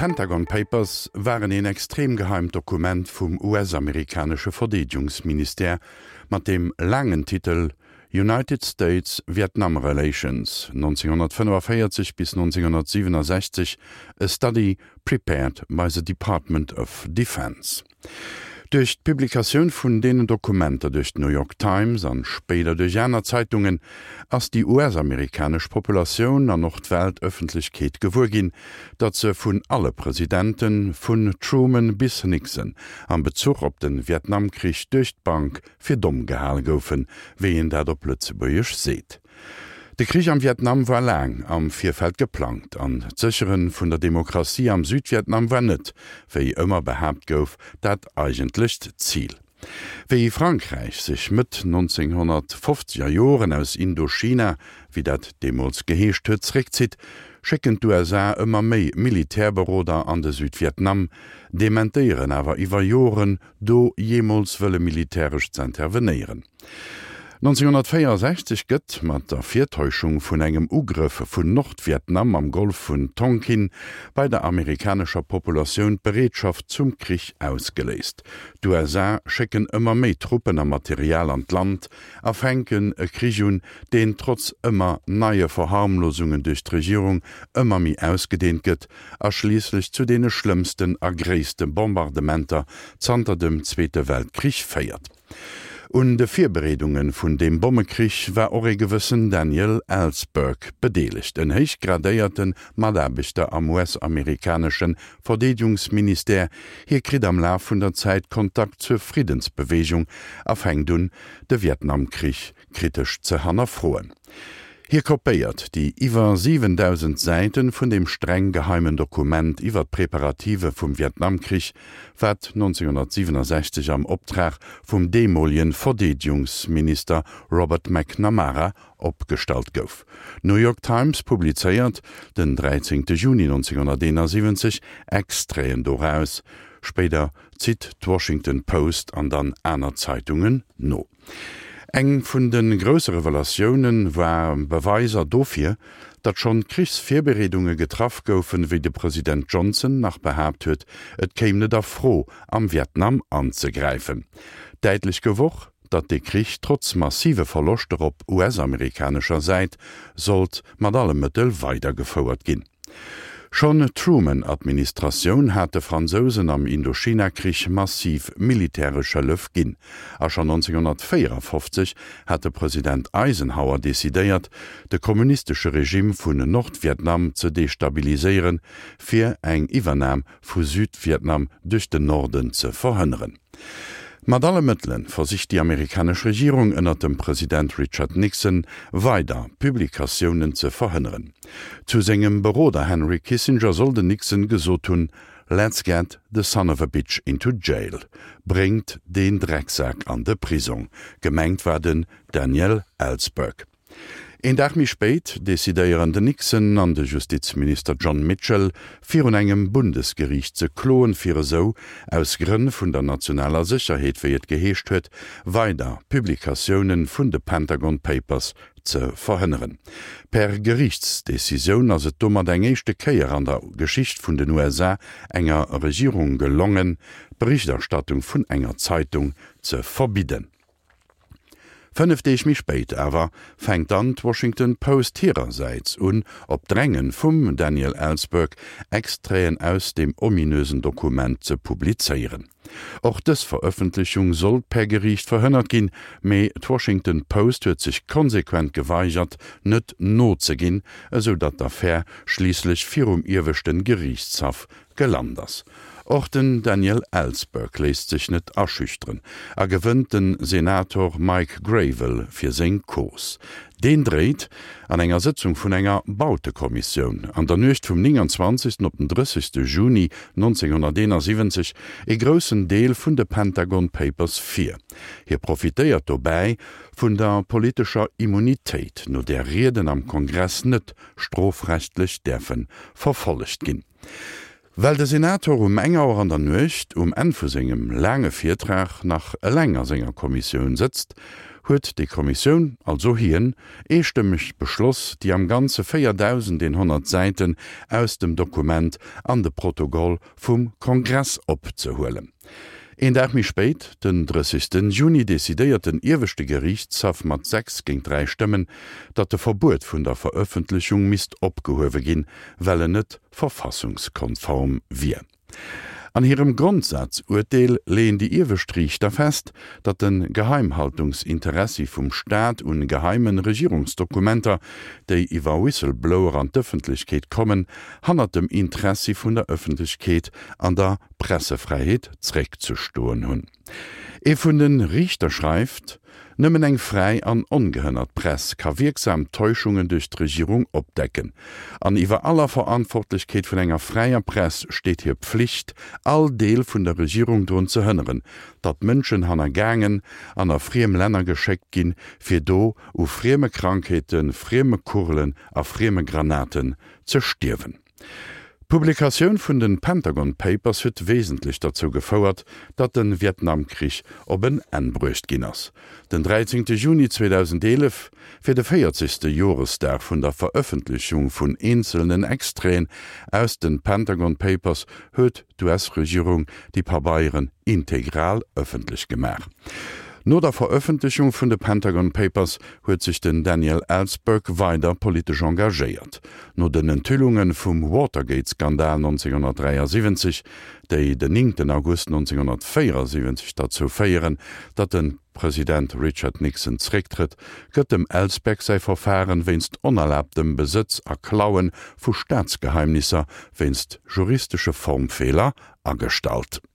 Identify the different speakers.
Speaker 1: D'Pentagon Papers waren een extrem geheimt Dokument vum US-amerikanesche Verdeedegungsministère mat dem laangen Titel United States-Vietnam Relations, 1945 bis 1967, A Study Prepared by the Department of Defense. Duerch d'Publikatioun vun deenen Dokumenter duerch d'New York Times an spéider duerch aner Zeitungen ass déi US-amerikanesch Populatioun an och d'Weltëffentlechkeet gewuer ginn, datt se vun alle Presidenten, vun Truman bis Nixon, am Bezuch op de Vietnamkrich duerch d'Bank fir domm gehal goufen, wéi een dat op Lëtzebuergesch seet. De Krich am Vietnam war laang am Virfeld geplangt an d'Séchere vun der Demokratie am Südvietnam war net, wéi ëmmer behaapt gouf, dat eigentlecht Zil. Wéi Frankräich sech Mëtt 1950er Joren aus Indochina, wéi dat deemools geheescht huet, zeréckzitt, schécken d'USA ëmmer méi Militärberoder an de Südvietnam, dementéieren awer iwwer Joren, do jeemools wëlle militäresch z'intervenéieren. 1964 gëtt, mat der Virtäuschung vun engem Ugrëff vun Nordvietnam am Golf vun Tonkin, bei der amerikanescher Populatioun d'Bereetschaft zum Krich ausgeléist. D'USA schécken ëmmer méi Truppen a Material an d'Land a fänken e Krich un, deen trotz ëmmer neie Verharmlosungen duerch d'Regierung ëmmer méi ausgedeent gëtt a schliisslech zu deene schlëmmsten a gréisste Bombardementer zanter dem Zweete Weltkrich féiert. Un de Virbereedunge vun deem Bommekrich war och ee gewëssen Daniel Ellsberg bedeelegt, en héich gradéierte Mataarbechter am US-amerikanesche Verdeedegungsministère. Hie kritt am Laf vun der Zäit Kontakt zur Friddensbeweegung a fänkt un, de Vietnamkrich kritesch ze hannerfroen. Hie kopéiert déi iwwer 7.000 Säite vun deem streng geheimen Dokument iwwer d'Preparative vum Vietnamkrich, wat 1967 am Optrag vum deemolegen Verdeedegungsminister Robert McNamara opgestallt gouf. D'New York Times publizéiert den 13 Juni 1971 Extraiten doraus, spéider zitt d'Washington Post an dann aner Zeitungen no. Eng vun de grousse Revelatioune war Beweiser dofir, datt schonn Krichsvirbereedunge getraff goufen, wéi de President Johnson nach behaapt huet, et kéim net a Fro, am Vietnam anzegräifen. Däitlech gouf och, datt dee Krich trotz massive Verloschter op US-amerikanescher Säit sollt mat alle Mëttel weidergefouert ginn. Schonn d'Truman-Administratioun hat de Fransousen am Indochina-Krich massiv militäresch Hëllef ginn. A schonn 1954 hat de President Eisenhower decidéiert, de kommunistesche Regime vun Nordvietnam ze destabiliséieren, fir eng Iwwernam vu Südvietnam duerch den Norden ze verhënneren. Mat alle Mëttele versicht déi amerikanesch Regierung ënnert dem President Richard Nixon weider Publikatiounen ze verhënneren. Zu sengem Beroder Henry Kissinger soll den Nixon gesot hunn, Let's get the son of a bitch into jail, Bréngt deen Drecksak an de Prisong. Gemengt war den Daniel Ellsberg. Een Dag méi spéit decidéieren den Nixon an de Justizminister John Mitchell, virun engem Bundesgeriicht ze kloen, fir esou, aus Grënn vun der nationaler Sécherheet, wéi et geheescht huet, weider Publikatioune vun de Pentagon Papers ze verhënneren. Per Geriichtsdecisioun ass et domat eng éischte Kéier an der Geschicht vun den USA enger Regierung gelongen, d'Berichterstattung vun enger Zeitung ze verbidden. 5 Deeg méi spéit awer fänkt dann d'Washington Post hirersäits un, op Dränge vum Daniel Ellsberg Extraiten aus deem ominösen Dokument ze publizéieren. Och dës Verëffentlechung sollt per Geriicht verhënnert ginn, mee d'Washington Post huet sech konsequent geweigert, net nozeginn, esou datt d'Affär schliisslech virum ieweschten Geriichtshaff gelant ass. Och den Daniel Ellsberg léisst sech net aschüchteren a gewënnt de Senator Mike Gravel fir seng Cause. Deen dréit an enger Sëtzung vun enger Bautekommissioun an der Nuecht vum 29. op den 30. Juni 1971 ee groussen Deel vun de Pentagon Papers vir. Hie profitéiert dobäi vun der politescher Immunitéit, no där Rieden am Kongress net strofrechtlech däerfe verfollegt ginn. Well de Senator um eng Auer an der Nuecht, um Enn vu sengem laange Virtrag, nach eleng a senger Kommissioun sëtzt, huet déi Kommissioun, also hien, eestëmmeg beschloss, déi am Ganze 4.100 Säiten aus dem Dokument an de Protokoll vum Kongress opzehuelen. Een Dag méi spéit, den 30. Juni, decidéiert den ieweschte Geriichtshaff mat 6 géint 3 Stëmmen, datt de Verbuet vun der Verëffentlechung misst opgehuewe ginn, well en net verfassungskonform wier. An hirem Grondsazurteel leeën déi iewescht Riichter fest, datt de Geheimhaltungsinteressi vum Staat un geheime Regierungsdokumenter, déi iwwer Whistleblower an d'Ëffentlechkeet kommen, hannert dem Interessi vun der Ëffentlechkeet an der Pressefräiheet zréckzestoen hunn. Ee vun de Riichter schreift, Nëmmen eng fräi an ongehënnert Press ka wierksam Täuschungen duerch d'Regierung opdecken. An iwwer aller Verantwortlechkeet vun enger fräier Press steet hir Pflicht, all Deel vun der Regierung drun ze hënneren, datt Mënschen hannergaangen an a friem Länner geschéckt ginn, fir do u frieme Krankheeten, frieme Kugelen a frieme Granaten ze stierwen. D'Publikatioun vun den Pentagon Papers huet wesentlech derzou gefouert, datt den Vietnamkrich op en Enn bruecht ginn ass. Den 13 Juni 2011, fir de 40. Joresdag vun der Verëffentlechung vun eenzelnen Extraiten aus den Pentagon Papers, huet d'US-Regierung déi Pabeieren integral ëffentlech gemaach. No der Verëffentlechung vun de Pentagon Papers huet sech den Daniel Ellsberg weider politesch engagéiert. No den Enthüllunge vum Watergate-Skandal 1973, déi den 9 August 1974 derzou féieren, datt de President Richard Nixon zerécktrëtt, gëtt dem Ellsberg säi Verfaren wéinst onerlaabtem Besëtz a Klaue vu Staatsgeheimnisser wéinst juristesche Formfeeler agestallt.